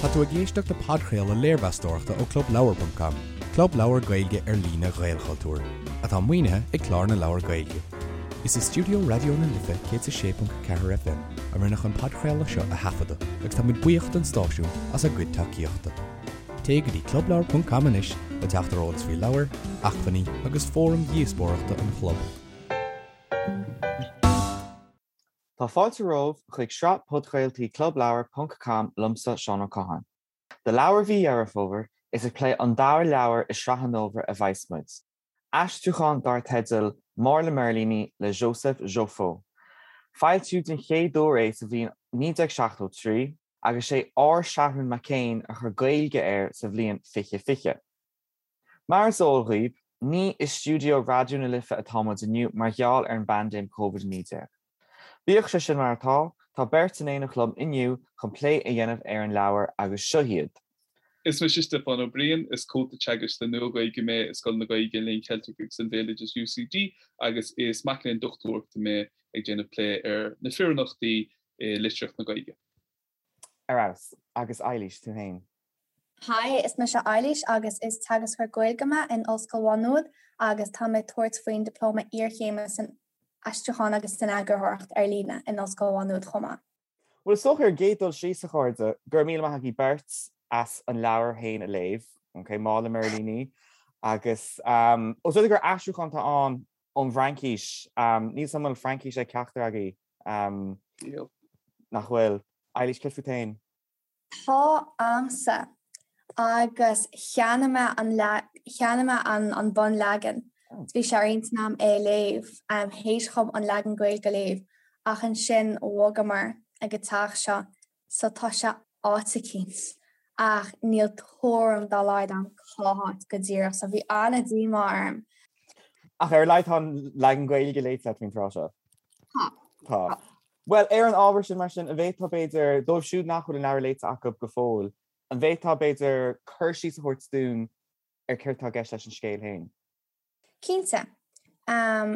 Tá tú ag éisteacht le podchraoladh léirmheastóireachta ó Clubleabhar ponc com, club leabhar Gaeilge ar líne Ghaelchultúir, atá maoinithe ag Clár na Leabhar Gaeilge. Is i stiúideo Raidió na Life 106.4 FM a rinneadh an podchraoladh seo a thaifeadadh agus táimid buíoch don stáisiún as a gcuid tacaíochta. Téigh go dtí clubleabhar ponc com anois le teacht ar eolas faoi leabhair, acmhainní agus fóraim dhíospóireachta an chlub. Tá fáilte romhaibh chuig sraith podchraoltaí Clubleabhar ponc com liomsa Seán Ó Catháin. Do leabhar mhí Dheireadh Fómhair, is ag plé an dara leabhar i sraith an fhómhair a bheas muid. Aistriúchán dar teideal Mála Mirlíní le Joseph Joffo. Foilsíodh den chéad uair é sa bhliain 1973 agus sé R. Seathrún Mac Éin a chuir Gaeilge air sa bhliain 2020. Mar is eol dhaoib, ní i stiúideo Raidió na Life atá muid inniu mar gheall ar an bpaindéim Covid-19. Bíodh sé sin mar atá, tá beirt in éineacht liom inniu chun plé a dhéanamh ar an leabhar agus seo iad. Is mise Stiofán Ó Briain, is comhalta teagaisc le Nua-Ghaeilge mé i Scoil na Gaeilge, an Léinn Cheiltigh agus an Bhéaloidis, UCD, agus is mac léinn dochtúireachta mé ag déanamh plé ar na fireannachtaí i litríocht na Gaeilge. Ar fheabhas. Agus Eilís, tú féin? Hi, is mise Eilís agus is teagascóir Gaeilge mé in Ollscoil Mhá Nuad agus tá mé ag tabhairt faoin Dioplóma Iarchéime san Aistriúchán agus san Eagarthóireacht ar Líne in Ollscoil Mhá Nuad chomh maith. Bhuel, is dócha ar an gcéad dul síos, a chairde, go raibh míle maith agaibh beirt as an leabhar féin a léamh, ok, Mála Mirlíní, agus os rud é gur aistriúchán atá ann ón bhFraincís, níl 'fhios a'm an bhfuil Fraincis ag ceachtar agaibh, Níl. Nach bhfuil? Eilís, céard fút féin? Tá a'msa, agus cheannaigh mé an cheannaigh mé an an bunleagan. Bhí sé ar intinn a'm é a léamh, théis dhom an leagan Gaeilge a léamh, ach ansin bhogamar ag an teach seo so tá sé áit eicínt ach níl tuairim dá laghad a'm cá háit go díreach so bhí an-díomá orm. Ach ar a laghad tá an leagan Gaeilge léite agat faoin tráth seo. Tá. Tá. Bhuel, ar an ábhar sin, mar sin, an bhféadfá, b'fhéidir, dóibh siúd nach bhfuil an leabhar léite acu go fóill, an bhféadfá, b'fhéidir, cur síos a thabhairt dúinn ar céard atá i gceist leis an scéal féin? Cinnte.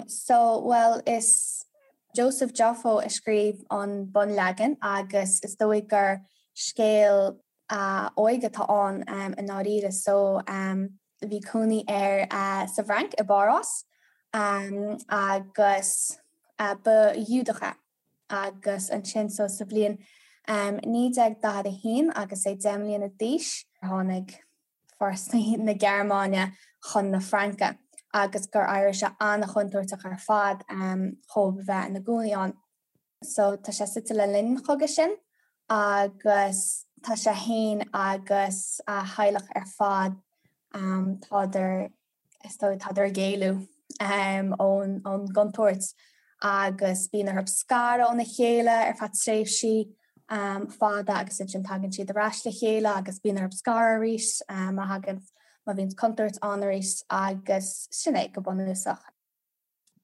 So, bhuel, is Joseph Joffo a scríobh an bunleagan agus is dóigh gur scéal a óige atá ann i ndáiríre. So, bhí cónaí air sa bhFrainc, i bPáras, agus ba Ghiúdach é. Agus ansin, so sa bhliain 1941 agus é 10 mbliana d'aois, tháinig fórsaí na Gearmáine chun na Fraince agus gur éirigh sé an-chontúirteach ar fad dhóibh a bheith ina gcónaí ann. So tá sé suite le linn an chogaidh sin agus tá sé fhéin agus a theaghlach ar fad, tádar, is dóigh, tádar ag éalú ón gcontúirt agus bíonn orthu scaradh óna chéile ar feadh tréimhsí fada agus ansin tagann siad ar ais le chéile agus bíonn orthu scaradh arís má thagann, má bhíonn contúirt ann arís agus sin é go bunúsach.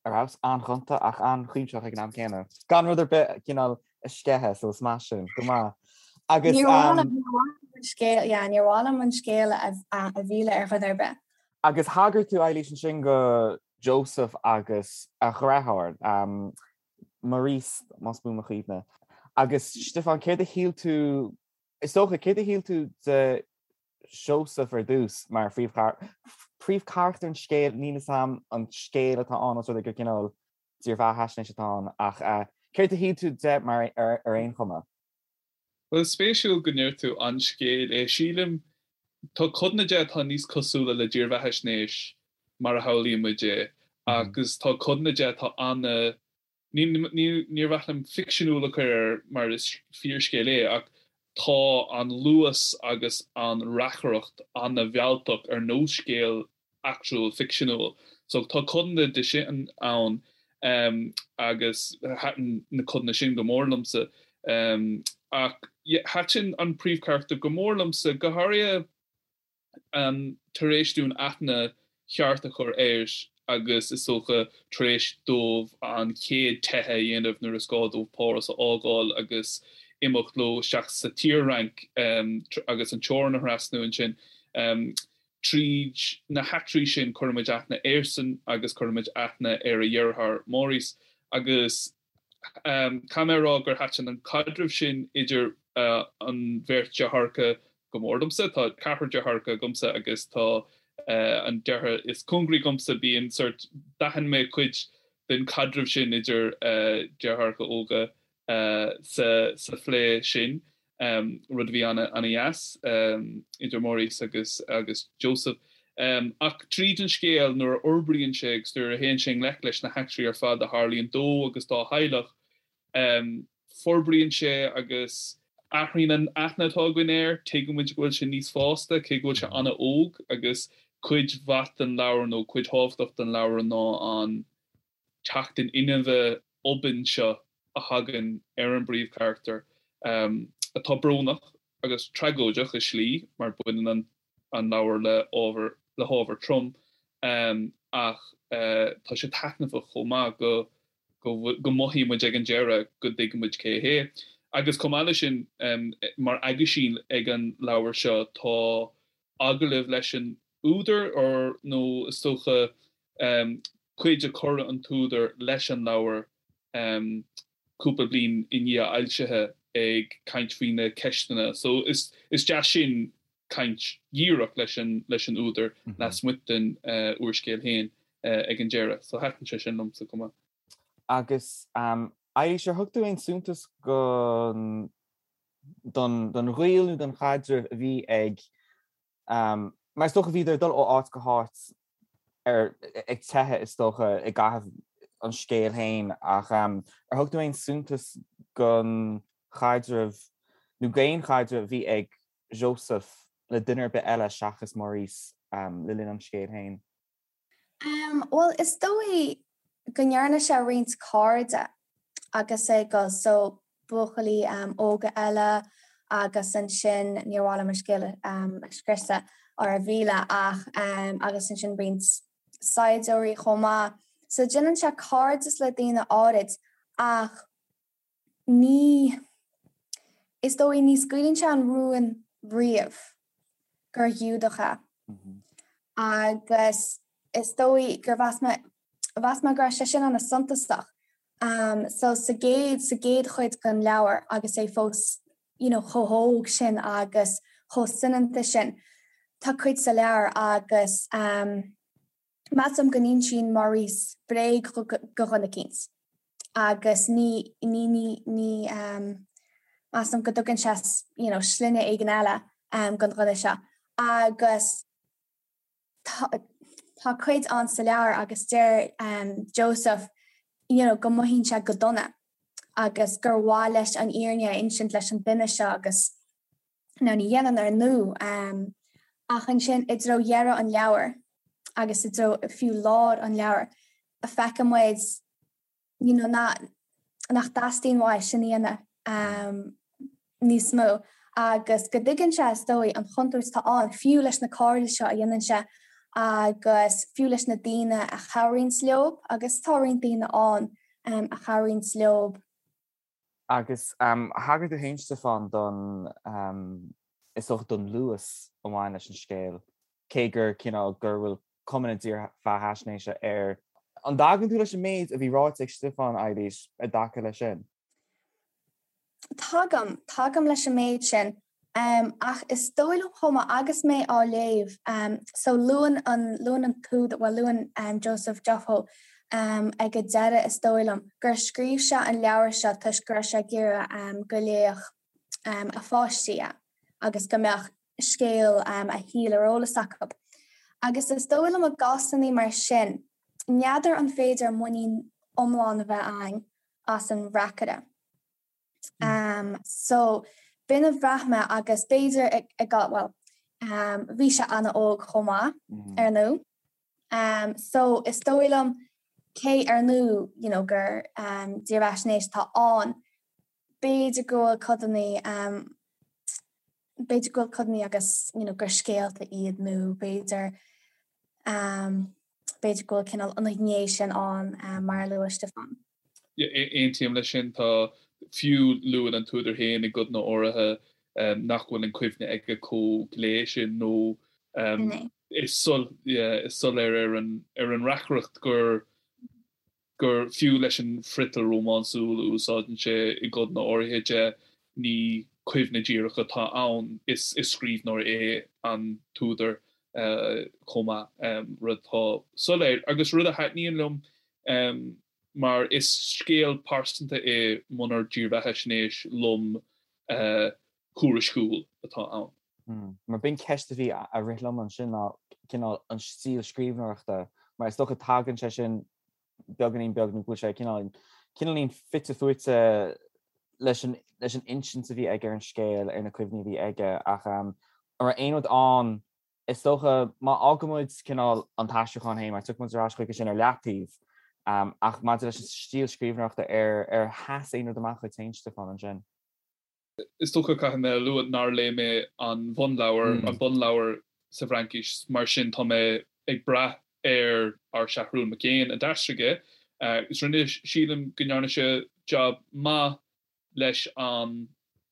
Ar fheabhas, an-ghonta ach an-chuimsitheach ag an am céanna. Gan rud ar bith cineál a sceitheadh, so is maith sin. Go maith. Agus. Níor mhaith liom an scéal, yeah, níor mhaith liom an scéal a mhilleadh ar dhuine ar bith. Agus thagair tú, Eilís, ansin go Joseph agus a dheartháir, Maurice, más buan mo chuimhne. Agus Stiofán, céard a shíl tú, is dócha, céard a shíl tú de Seosamh ar dtús mar phríomhcharachtar an scéil, níl 'fhios a'm an scéal atá ann os rud é gur cineál dírbheathaisnéis atá ann ach céard a shíl tú de mar ar aon chuma? Bhuel, is spéisiúil go ndeir tú an scéal é. Sílim, tá codanna de atá níos cosúla le dírbheathaisnéis mar a shamhlaíonn muid é agus tá codanna de atá ana Níor mhaith liom ficseanúil a chur air mar is fíorscéal é ach tá an luas agus an reacaireacht ana-mhealltach ar nós scéal eachtrúil ficseanúil. So tá codanna de sin ann agus thaitin na codanna sin go mór liomsa. Ach thaitin an príomhcharachtar go mór liomsa, go háirithe tar éis dúinn aithne cheart a chur air agus is dócha tar éis dóibh an chéad teitheadh a dhéanamh nuair is gá dóibh Páras a fhágáil agus imeacht leo isteach sa tSaor-Fhrainc agus an teorainn a thrasnú ansin. Tríd na heachtraí sin cuirimid aithne airsean agus cuirimid aithne ar a dheartháir Maurice agus Caithfidh mé a rá gur thaitin an caidreamh sin idir an bheirt deartháireacha. go mór domsa. Tá ceathrar deartháireacha agamsa agus tá an deartháir is cóngaraí dhomsa, bíonn sort, d'aithin mé cuid den chaidreamh sin idir deartháireacha óga sa phlé sin, rud a bhí ana-dheas idir Maurice agus agus Joseph. Ach tríd an scéal, nuair a fhorbraíonn sé agus nuair a théann sé i ngleic leis na heachtraí ar fad a tharlaíonn dó agus dá theaghlach, Forbraíonn sé agus athraíonn an aithne atá againn air, tuigeann muid go bhfuil sé níos fásta, cé go bhfuil sé an-óg, agus cuid mhaith den leabhar nó cuid thábhachtach den leabhar ná an teacht in inmhe obann seo a thagann ar an bpríomhcharachtar, atá brónach agus tragóideach i slí, mar baineann an an leabhar le ábhar le hábhar trom, ach tá sé taitneamhach chomh maith go go mothaíonn muid ag an deireadh go dtuigeann muid cé hé. Agus chomh maith leis sin, mar aguisín ag an leabhar seo tá agallamh leis an údar, or nó is dócha cuid a chuir an t-údar leis an leabhar cúpla bliain i ndiaidh a fhoilsithe ag caint faoi na ceisteanna. So is deas sin caint dhíreach leis an leis an údar lasmuigh den úrscéal féin ag an deireadh. So thaitin sé sin liomsa chomh maith. Agus Eilís, ar thug tú aon suntas don don ghaol nó don chaidreamh a bhí ag Mar is dócha bhíodar ag dul ó áit go háit ar ag teitheadh is dócha i gcaitheamh an scéil féin ach ar thug tú aon suntas don chaidreamh nó d'aon chaidreamh a bhí ag Joseph le duine ar bith eile seachas Maurice le linn an scéil féin? Bhuel, is dóigh go ndearna sé roinnt cairde agus é ag dul, so buachaillí óga eile agus ansin, níor mhaith liom an scéal a scriosadh or a mhilleadh ach agus ansin roinnt saighdiúirí chomh maith. So déanann sé cairdeas le daoine áirid ach ní, is dóigh, ní scaoileann sé an rún riamh gur Ghiúdach é. Agus is dóigh gur mheas mé, mheas mé go raibh sé sin an-suntasach. So sa gcéad, sa gcéad chuid den leabhar agus é fós you know chomh hóg sin agus chomh soineanta sin, tá cuid sa leabhar agus Measaim go n-insíonn Maurice bréag do dhuine eicínt agus ní, ní, ní, ní, measaim go dtugann sé you know sloinne éigin eile don dhuine seo agus tá, tá cuid ann sa leabhar agus deir Joseph you know go mothaíonn sé go dona agus gur mhaith leis an fhírinne a insint leis an duine seo agus Now ní dhéanann ar ndóigh, ach ansin i dtreo dheireadh an leabhair agus i dtreo fiú lár an leabhair, feiceann muid you know nach dteastaíonn uaidh sin a dhéanamh níos mó agus go dtuigeann sé is dóigh an chontúirt atá ann fiú leis na cairde seo a dhéanann sé agus fiú leis na daoine a chabhraíonns leo agus tá roinnt daoine ann a chabhraíonns leo. Agus thagair tú féin, Stiofán, don, is dócha, don luas a bhain leis an scéal, cé gur cineál, gur bhfuil cuma na dírbheathaisnéise air. An dtagann tú leis an méid a bhí ráite ag Stiofán, Eilís, i dtaca leis sin? Tagaim, tagaim leis an méid sin. Ach is dóigh liom chomh maith, agus mé á léamh, so luann an, luann an t-údar, bhuel luann Joseph Joffo ag an deireadh is dóigh liom, gur scríobh sé an leabhar seo toisc go raibh sé ag iarraidh go léifeadh a pháistí é agus go mbeadh scéal a shaoil ar eolas acu. Agus is dóigh liom i gcásanna mar sin, n'fheadar an féidir muinín iomlán a bheith againn as an reacaire. So, b'in a bhraith mé agus b'fhéidir ag, bhuel, bhí sé an-óg chomh maith, ar ndóigh. So, is dóigh liom, cé ar ndóigh, you know, gur dírbheathaisnéis atá ann, b'fhéidir go bhfuil codanna, b'fhéidir go bhfuil codanna agus, you know, gur scéalta iad nó b'fhéidir, b'fhéidir go bhfuil cineál an ghné sin ann mar a luaigh Stiofán. Aontaím leis sin. Tá, fiú luann an t-údar féin i gcodanna áirithe nach bhfuil an cuimhne aige chomh glé sin nó is soiléir ar an ar an reacaireacht gur gur fiú leis an friotal rómánsúil a úsáideann sé i gcodanna áirithe de, ní. Cuimhne díreach atá ann, is scríbhneoir é an t-údar chomh maith, rud atá soiléir agus rud a thaitníonn liom mar is scéal pearsanta é munar dírbheathaisnéis lom thuairisciúil atá ann. Mar b'in ceist a bhí a rith liom ansin ná cineál an stíl scríbhneoireachta, mar is dócha tagann sé sin beagáinín beag nó go bhfuil sé cineál cineáilín fite fuaite leis an leis an insint a bhí aige ar an scéal, ar na cuimhní a bhí aige ach an raibh aon rud ann is dócha má fhágann muid cineál an t-aistriúchán féin mar tiocfaidh muid ar ais chuige sin ar leataobh ach maidir leis an stíl scríbhneoireachta ar ar sheas aon rud amach dhuit féin Stiofán ansin? Is dócha, caithfidh mé a lua, nár léigh mé an bhunleabhar, an bunleabhar sa bhFraincis, mar sin tá mé ag brath ar ár Seathrún Mac Éin a d'aistrigh é. Agus rinne, sílim go ndearna sé jab maith leis an,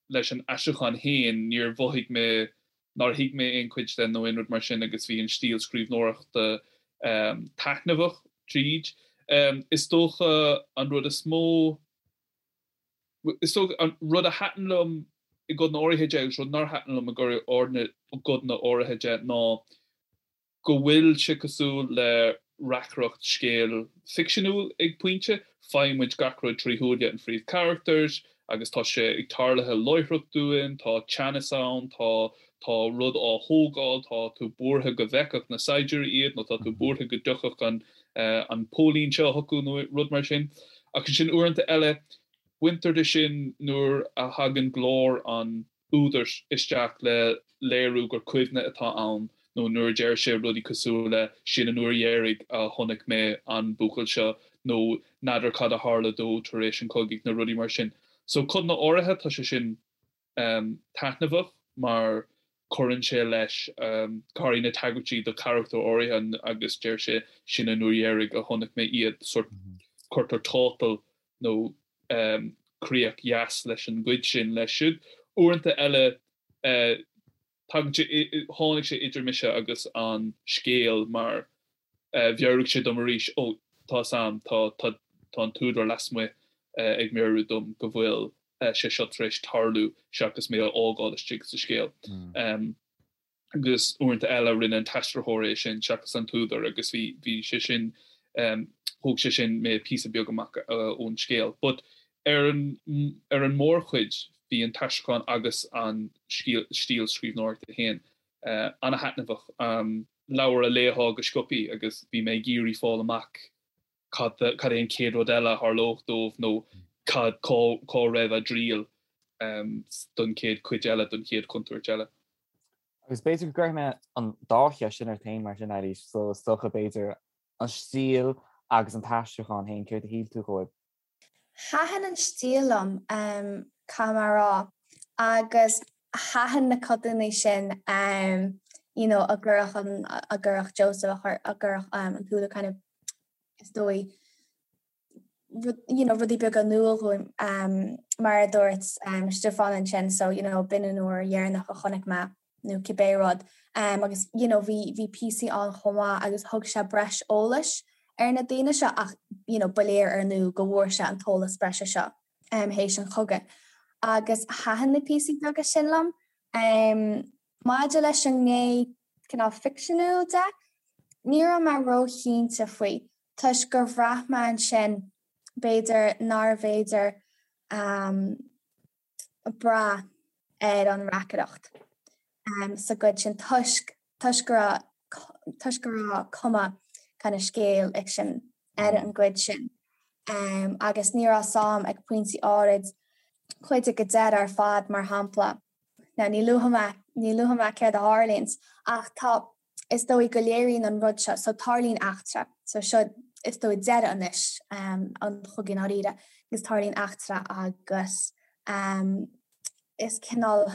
leis an aistriúchán féin, níor mhothaigh mé nár thuig mé aon chuid de nó aon rud mar sin agus bhí an stíl scríbhneoireachta taitneamhach tríd. Is dócha an rud is mó, Is dócha, an rud a thaitin liom i gcodanna áirithe de agus rud nár thaitin liom i gcodanna áirithe de ná go bhfuil sé cosúil le reacaireacht scéil ficseanúil ag pointe. Faigheann muid gach rud trí shúile an phríomhcharachtair agus tá sé ag tarluithe láithreach dúinn, tá teannas ann, tá tá rud á thógáil, tá tú buartha go bhfeicfeadh na saighdiúirí iad nó tá tú buartha go dtiocfadh an an póilín seo chucu nó rud mar sin. Ach ansin uaireanta eile, baintear de sin nuair a thagann glór an údair isteach le léiriú gur cuimhne atá ann nó nuair a deir sé rudaí cosúil le 'sin an uair dheiridh a chonaic mé an buachaill seo' nó 'n'fheadar cad a tharla dó tar éis an chogaidh' nó rudaí mar sin. So codanna áirithe tá sé sin taitneamhach mar cuireann sé leis, go háirithe na tagairtí do charachtair áirithe agus deir sé 'sin an uair dheiridh a chonaic mé iad', sórt cuirtear tátal nó críoch dheas leis an gcuid sin leis siúd. Uaireanta eile tagann sé, tháinig sé idir mise agus an scéal mar mheabhraigh sé dom arís, ó, tá 'fhios a'm, tá, tá, tá an t-údar lasmuigh ag meabhrú dom go bhfuil sé seo tar éis tarlú seachas mé a fhágáil istigh sa scéal. Agus uaireanta eile rinne an t-aistritheoir é sin seachas an t-údar agus bhí, bhí sé sin, thóg sé sin mé píosa beag amach ón scéal. But ar an, ar an mórchuid bhí an t-aistriúchán agus an stíl scríbhneoireachta féin ana-thaitneamhach. Leabhar a léifeá go sciobthaí agus bhí mé ag iarraidh fáil amach cad cad é an chéad rud eile a tharlódh dóibh nó cad cá cá raibh a dtriall don chéad chuid eile, don chéad chontúirt eile. Agus b'fhéidir go gcuirfidh mé an dá cheist sin ort féin mar sin, Eilís, so is dócha b'fhéidir an stíl agus an t-aistriúchán féin, céard a shíl tú dhóibh? Thaitin an stíl liom, caithfidh mé a rá, agus thaitin na codanna sin you know a gcuirfeadh an, a gcuirfeadh Joseph, a gcuirfeadh an t-údar kind of is dóigh rud, you know, rudaí beaga in iúl dhúinn mar a dúirt Stiofán ansin so you know b'in an uair dheireanach a chonaic mé nó cibé rud agus you know bhí bhí píosaí ann chomh maith agus thug sé breis eolais ar na daoine seo ach you know ba léir ar ndóigh go bhfuair sé an t-eolas breise seo théis an chogaidh. Agus thaitin na píosaí beaga sin liom. Maidir leis an ngné cineál ficseanúil de, ní raibh mé róchinnte faoi toisc gur bhraith mé ansin b'fhéidir nárbh fhéidir brath ar an reacaireacht sa gcuid sin toisc toisc go raibh toisc go raibh cuma kind of scéal fhicsin ar an gcuid sin agus ní raibh 'fhios a'm ag pointí áirid cuid ag an deireadh ar fad mar shampla. Now ní luafaidh mé ní luafaidh mé céard a tharlaíonns ach tá is dóigh go léiríonn an rud seo, so tarlaíonn eachtra, so seo is dóigh deireadh anois an chogaidh i ndáiríre, agus tarlaíonn eachtra agus is cineál,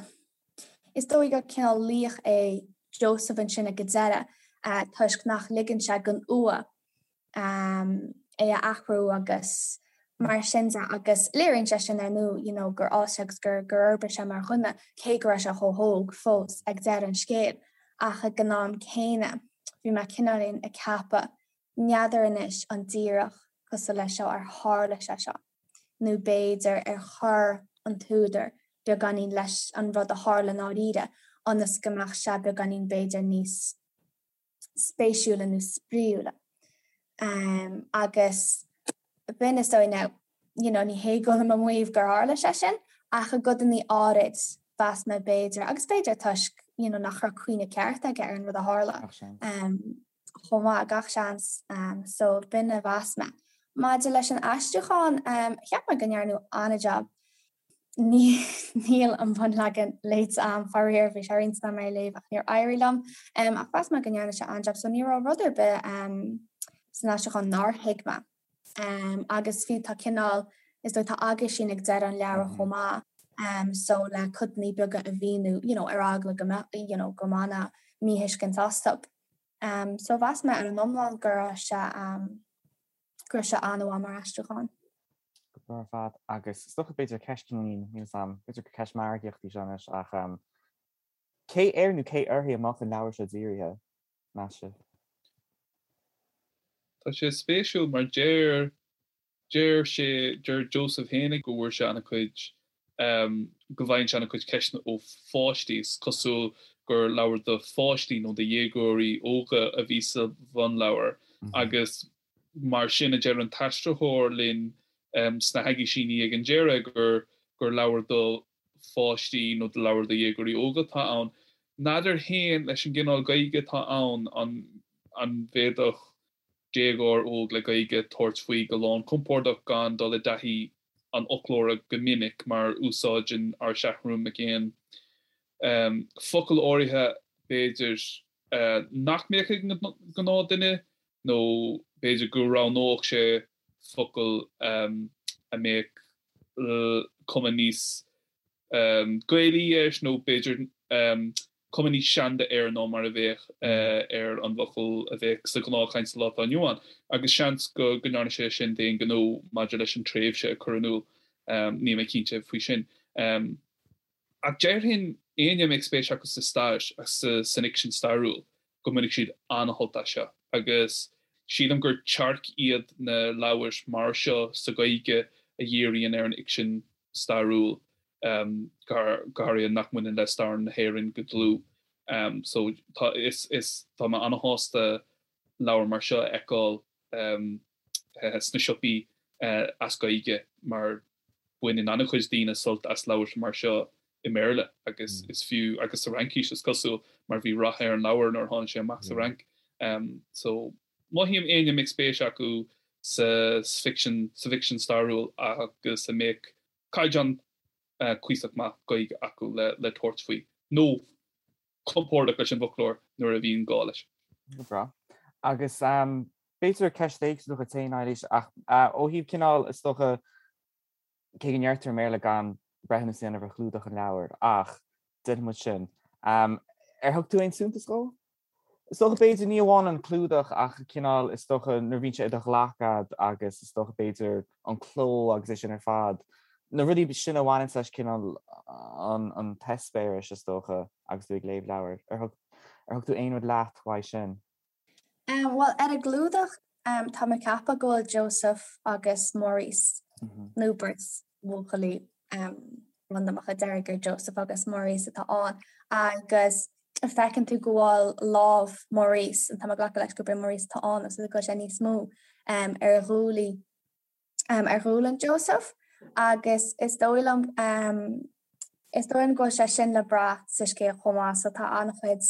is dóigh gur cineál laoch é Joseph ansin ag an deireadh toisc nach ligeann sé don fhuath é a athrú agus mar sin de agus léiríonn sé sin ar ndóigh you know gur fhás sé agus gur gur fhorbair sé mar dhuine cé go raibh sé chomh hóg fós ag deireadh an scéil ach ag an am céanna bhí mé cineáilín ag ceapadh n'fheadar anois an díreach cosúil leis seo ar tharla sé seo nó b'fhéidir ar chuir an t-údar. beagáinín leis an rud a tharla i ndáiríre ionas go mbeadh sé beagáinín b'fhéidir níos spéisiúla nó spraíúla. Agus b'in is dóigh now, you know, ní hé go bhfuilim ag maíomh gur tharla sé sin, ach i gcodannaí áirid, mheas mé b'fhéidir, agus b'fhéidir toisc, you know, nach raibh cuimhne ceart aige ar an rud a tharla. Gach seans. Chomh maith, gach seans. So b'in a mheas mé. Maidir leis an aistriúchán, cheap mé go ndearnadh an-jab. Níl an bunleagan léite a'm, faraor, bhí sé ar intinn a'm é a léamh ach níor éirigh liom. Ach mheas mé go ndearna sé an-jab so ní raibh rud ar bith san aistriúchán nár thuig mé. Agus fiú tá cineál, is dóigh tá aguisín ag deireadh an leabhair chomh maith so le codannaí beaga a mhíniú you know ar eagla go mbeadh you know go mbainfeá míthuiscint astu. So mheas mé ar an iomlán go raibh sé go raibh sé an-mhaith mar aistriúchán. Go breá ar fad. Agus is dócha b'fhéidir ceist cineáilín, níl 'fhios a'm, b'fhéidir gur ceist margaíochta í seo anois ach cé air nó cé uirthi a mbeadh an leabhar seo dírithe, meas sibh? Tá sé spéisiúil mar deir Deir sé, deir Joseph féinig go bhfuair sé an-chuid, go bhfaigheann sé an-chuid ceisteanna ó pháistí. Is cosúil gur leabhar do pháistí nó do dhéagóirí óga a bhí sa bhunleabhar agus mar sin a deir an t-aistritheoir linn sna haguisíní ag an deireadh gur gur leabhar do pháistí nó do leabhar do dhéagóirí óga atá ann. N'fheadar féin leis an gcineál Gaeilge atá ann an an bhféadfadh déagóir óg le Gaeilge tabhairt faoi go lánchompordach gan dul i dtaithí an fhoclóra go minic mar úsáideann ár Seathrún Mac Éain focail áirithe b'fhéidir nach mbeadh ag an gnáthdhuine nó b'fhéidir go roghnódh sé focail a mbeadh cuma níos Gaelaí air nó b'fhéidir cuma níos seanda air ná mar a bheadh ar an bhfocal a bheadh sa ghnáthchaint sa lá atá inniu ann, agus seans go ndearna sé sin d'aon ghnó maidir leis an tréimhse a chur in iúl, níl mé cinnte faoi sin. Ach déarfainn, éinne a mbeadh spéis acu sa stair agus san fhicsean stairiúil, go mbainfidh siad an-shult as seo, agus sílim gur tearc iad na leabhair mar seo sa Ghaeilge a dhíríonn ar an fhicsean stairiúil, go háirithe nach mbaineann le stair na hÉireann go dlúth. So tá, is, is, tá mé an-shásta leabhar mar seo a fheiceáil sna siopaí as Gaeilge mar baineann an-chuid daoine sult as leabhair mar seo i mBéarla agus is fiú, agus sa Fhraincis is cosúil mar bhí rath ar an leabhar nuair a tháinig sé amach sa Fhrainc. So mothaím éinne a mbeadh spéis acu sa bhficsean, sa bhficsean stairiúil agus a mbeadh caighdeán cuíosach maith Gaeilge acu le tabhairt faoi, nó compordach leis an bhfoclóir nuair a bhíonn gá leis. Go breá. Agus b'fhéidir ceist éagsúil dhuit féin, Eilís, ach ó thaobh cineál, is dócha, cé go ndeirtear i mBéarla gan breithiúnas a dhéanamh ar chlúdach an leabhair, ach déanfaidh muid sin. Ar thug tú aon suntas dhó? Is dócha, b'fhéidir, ní amháin an clúdach ach cineál, is dócha, nuair a bhíonn sé i do ghlac agat agus is dócha, b'fhéidir, an cló agus é sin ar fad, na rudaí sin a bhaineanns leis cineál an an t-eispéireas, is dócha, agus tú ag léamh leabhair. Ar thug ar thug tú aon rud leat uaidh sin? Bhuel, ar an gclúdach, tá mé ag ceapadh go bhfuil Joseph agus Maurice, nó beirt bhuachaillí randamacha, déarfainn gur Joseph agus Maurice atá ann, agus feiceann tú go bhfuil lámh Maurice, tá mé ag glacadh leis gurb é Maurice atá ann, agus go bhfuil sé níos mó ar ghuaillí ar ghualainn Joseph agus is dóigh liom is dóigh liom go bhfuil sé sin le brath sa scéal chomh maith so tá an-chuid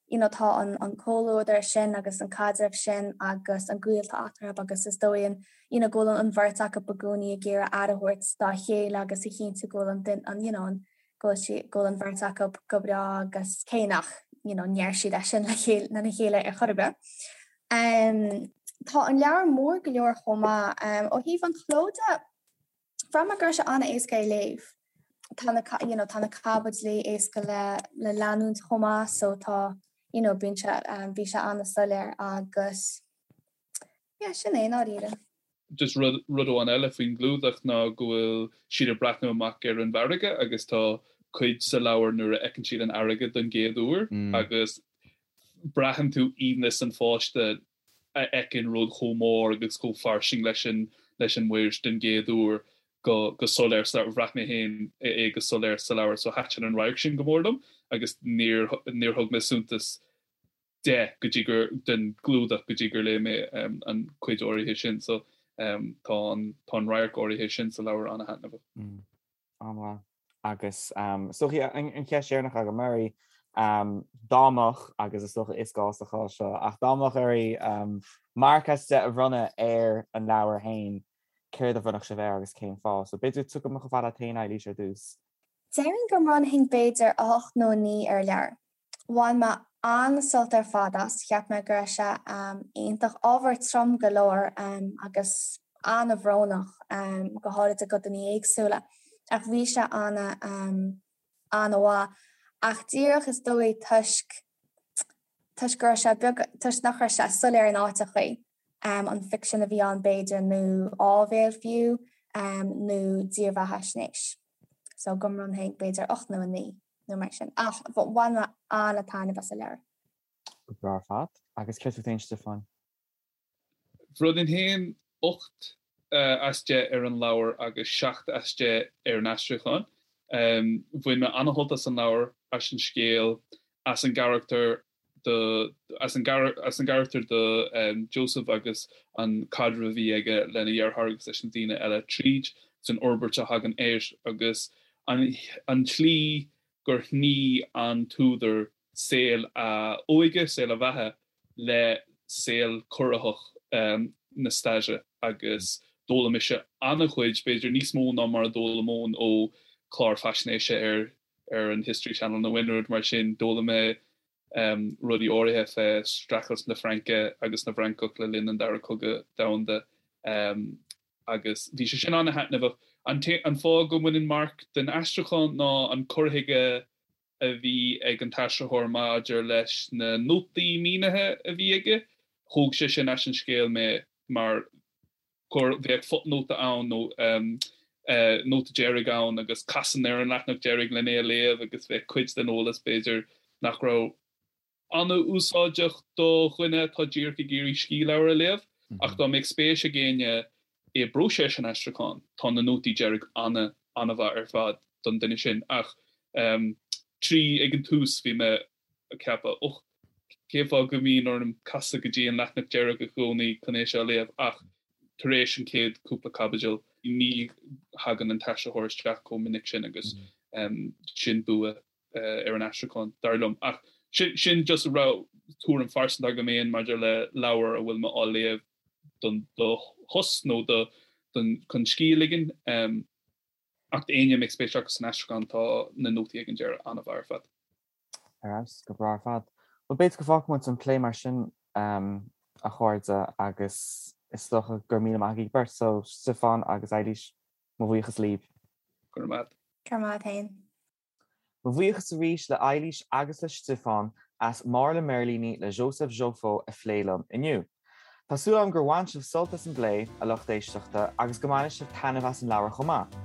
you know tá an an comhluadar sin agus an caidreamh sin agus an gaol atá eatarthu agus is dóigh an you know go bhfuil an bheirt acu i gcónaí ag iarraidh aire a thabhairt dá chéile agus a chinntiú go bhfuil an duine an you know an go bhfuil sí go bhfuil an bheirt acu go breá agus cé nach you know ndeir siad é sin le chéile lena chéile ar chor ar bith. Tá an leabhar mór go leor chomh maith. Ó thaobh an chló de, bhraith mé go raibh sé an-éasca é léamh. Tá na you know tá na caibidlí éasca le le leanúint chomh maith so tá you know bíonn sé bhí sé an-soiléir agus yeah sin é i ndáiríre. Just rud rud amháin eile faoin gclúdach ná go bhfuil siad ag breathnú amach ar an bhfarraige agus tá cuid sa leabhar nuair a fheiceann siad an fharraige don gcéad uair agus braitheann tú aoibhneas an pháiste a fheiceann rud chomh mór agus chomh fairsing leis an leis an muir den gcéad uair. Go go soiléir sa leabhar, bhraith mé féin é go soiléir sa leabhar so thaitin an radharc sin go mór liom agus níor níor thug mé suntas de go dtí gur den gclúdach go dtí gur léigh mé an chuid áirithe sin so tá an tá an radharc áirithe sin sa leabhar an-thaitneamhach. An-mhaith. Agus is dócha an cheist dheireanach agam oraibh, dá mbeadh, agus is dócha is gá sa chás seo, ach dá mbeadh oraibh marc as 10 a bhronnadh ar an leabhar féin, céard a bhronnfadh sibh air agus cén fáth? So b'fhéidir tiocfaidh mé chomh fada leat féin, Eilís, ar dtús. Déarfainn go mbronnfainn b'fhéidir 8 nó 9 ar an leabhar. Bhain mé an-sult ar fad as, cheap mé go raibh sé iontach, ábhar trom go leor agus an-bhrónach, go háirid i gcodanna éagsúla, ach bhí sé an-mhaith. Ach díreach is dóigh toisc, toisc go raibh sé beag, toisc nach raibh sé soiléir in áiteachaí, an ficsean a bhí ann b'fhéidir nó áibhéil fiú, nó dírbheathaisnéis. So go mbronnfainn b'fhéidir 8 nó 9. nó mar sin. Ach bhain mé an-taitneamh as an leabhar. Go breá ar fad. Agus céard fút féin, Stiofán? Bhronnfainn féin 8 as 10 ar an leabhar agus 7 as 10 ar an aistriúchán. Bhain mé an-shult as an leabhar, as an scéal, as an gcarachtar do, as an as an gcarachtar do Joseph agus an caidreamh a bhí aige lena dheartháir agus leis na daoine eile tríd san fhorbairt a thagann air agus an an tslí gur shnoí an t-údar saol a óige, saol a bheatha le saol corraitheach na staire agus d'fhoghlaim mise an-chuid, b'fhéidir níos mó ná mar a d'fhoghlaimeoinn ó chlár faisnéise ar ar an History Channel nó aon rud mar sin. D'fhoghlaim mé rudaí áirithe fé streachailt na Fraince agus na bhFrancach le linn an Dara Cogadh Domhanda agus bhí sé sin an-thaitneamhach. An fáth go mbainfinn marc den aistriúchán ná an cur chuige a bhí ag an t-aistritheoir maidir leis na nótaí mínithe a bhí aige. Thóg sé sin as an scéal mé mar gur bheadh fothnóta ann nó nóta deiridh ann agus chasfainn ar an leathanach deiridh len é a léamh agus bheadh cuid den eolas b'fhéidir nach raibh an-úsáideach do dhuine atá díreach ag iarraidh scíth leabhar a léamh. Ach dá mbeadh spéis ag éinne i bpróiseas an aistriúcháin, tá na nótaí deiridh an-an-mhaith ar fad don duine sin. Ach trí ag an tús bhí mé ag ceapadh, och, cén fáth go mbíonn orm casadh go dtí an leathanach deiridh i gcónaí chun é seo a léamh ach tar éis an chéad cúpla caibidil ní thagann an t-aistritheoir isteach chomh minic sin agus sin bua ar an aistriúchán, dar liom. Ach sin just rud tuairim phearsanta agam féin maidir le leabhar a bhfuil mé á léamh don do shos nó do chun scíth a ligean. Ach d'éinne a mbeadh spéis acu san aistriúchán tá na nótaí ag an deireadh an-mhaith ar fad. Ar fheabhas, go breá ar fad. Bhuel, b'fhéidir go bhfágfaidh muid an plé mar sin, a chairde, agus is dócha go raibh míle maith agaibh beirt. So, Stiofán agus Eilís, mo bhuíochas libh. Go raibh maith. Go raibh maith agat féin. Mo bhuíochas arís le Eilís agus le Stiofán as Máire le Mirlíní le Joseph Joffo a phlé liom inniu. Tá súil agam gur bhain sibh sult as an bplé, a lucht éisteachta, agus go mbainfidh sibh taitneamh as an leabhar chomh maith.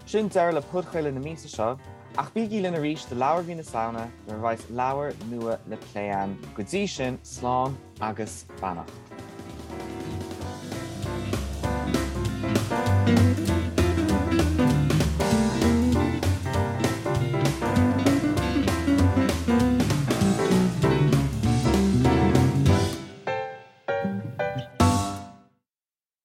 Sin deireadh le podchraoladh na míosa seo, ach bígí linn arís do leabhar mhí na Samhna nuair a bheas leabhar nua le plé againn. Go dtí sin, slán agus beannacht.